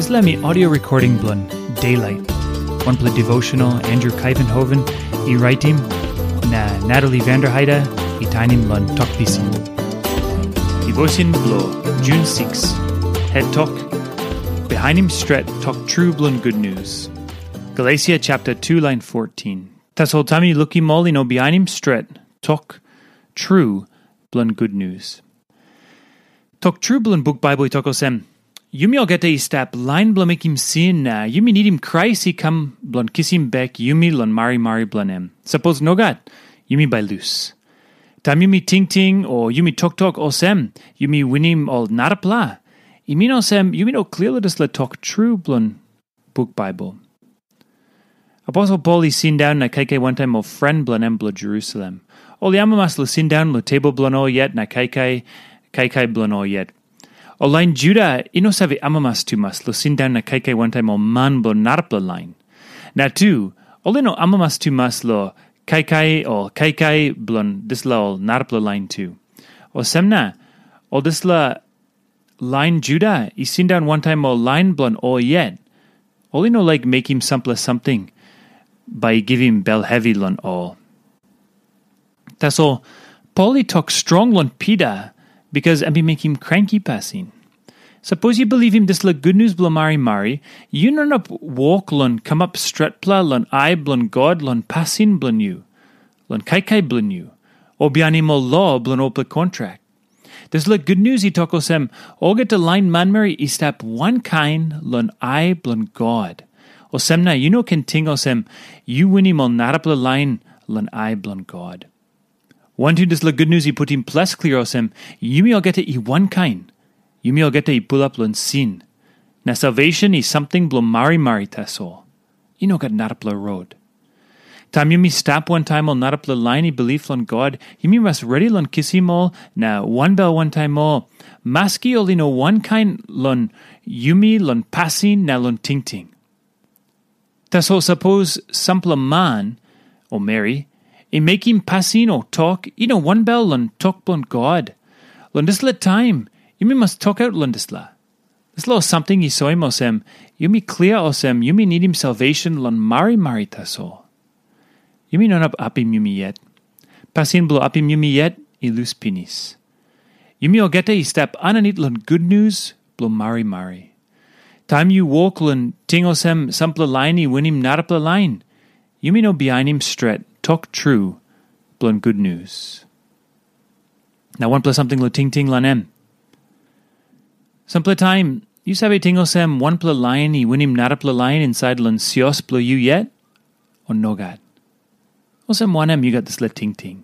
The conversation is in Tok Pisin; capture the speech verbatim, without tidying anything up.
Dispela mi audio recording bilong Daylight, wanpela devotional Andrew Kaivenhoven i raitim, na Natalie Vanderheide i tainim long Tok Pisin. Devotion bilong June six, het tok, Bihainim stret tok tru bilong gutnius. Galesia chapter two, lain fourteen. Tasol taim yu lukim ol i no bihainim stret tok tru bilong gutnius. Tok tru bilong buk Baibel i tok olsem, yumi olgeta i stap lain bilong mekim sin na yumi nidim Krais i kam bilong kisim bek yumi long marimari bilong em. Sapos nogat, yumi bai lus. Taim yumi tingting o yumi toktok olsem, yumi winim ol narapela, i min olsem yumi no klia long dispela tok tru bilong buk Baibel. Aposel Pol i sindaun na kaikai wantaim ol pren bilong em bilong Jerusalem. Ol i amamas long sindaun long tebol bilong ol yet na kaikai, kaikai bilong ol yet. Ol lain Juda i no save amamas tumas long sindaun na kaikai wantaim ol man bilong narapela lain. Na tu, ol i no amamas tumas long kaikai o kaikai bilong dispela ol narapela lain tu. Olsem na, ol dispela lain Juda i sindaun wantaim ol lain bilong ol yet. Ol i no laik mekim sampela samting bai i givim bel hevi long ol. Tasol Pol i tok strong long Pita, bikas em i mekim kranki pasin. Sapos yu bilivim dispela gutnius bilong marimari, yu no inap wok long kamap stretpela long ai bilong God long pasin bilong yu, long kaikai bilong yu, o bihainim ol lo bilong olpela kontrak. Dispela gutnius i tok olsem, olgeta lain manmeri i stap wankain long ai bilong God. Olsem na yu no ken ting olsem, yu winim ol narapela lain long ai bilong God. Wantu dispela gutnius i putim ples klia olsem, yumi olgeta i wankain, yumi olgeta i pulap long sin. Na salvation i samting bilong marimari tasol. I no gat narapela rot. Taim yumi stap wantaim ol narapela lain i bilip long God, yumi mas redi long kisim ol na wanbel wantaim ol, maski ol i no wankain long yumi long pasin na long tingting. Tasol sapos sampela man o meri i mekim pasin o tok i no wanbel long tok bilong God, long dispela taim yumi mas tokaut long dispela. Dispela ol samting i soim olsem, yumi klia olsem yumi nidim salvation long marimari tasol. Yumi no inap apim yumi yet. Pasin bilong apim yumi yet i lus pinis. Yumi olgeta i stap aninit long gutnius bilong marimari. Taim yu wok long ting olsem sampela lain i winim narapela lain, yumi no bihainim stret tok tru bilong gutnius. Na wanpela samting long tingting long em. Sampela taim, yu save ting olsem wanpela lain i winim narapela lain insait long sios bilong yu yet, o nogat? Olsem wanem yu gat dispela tingting?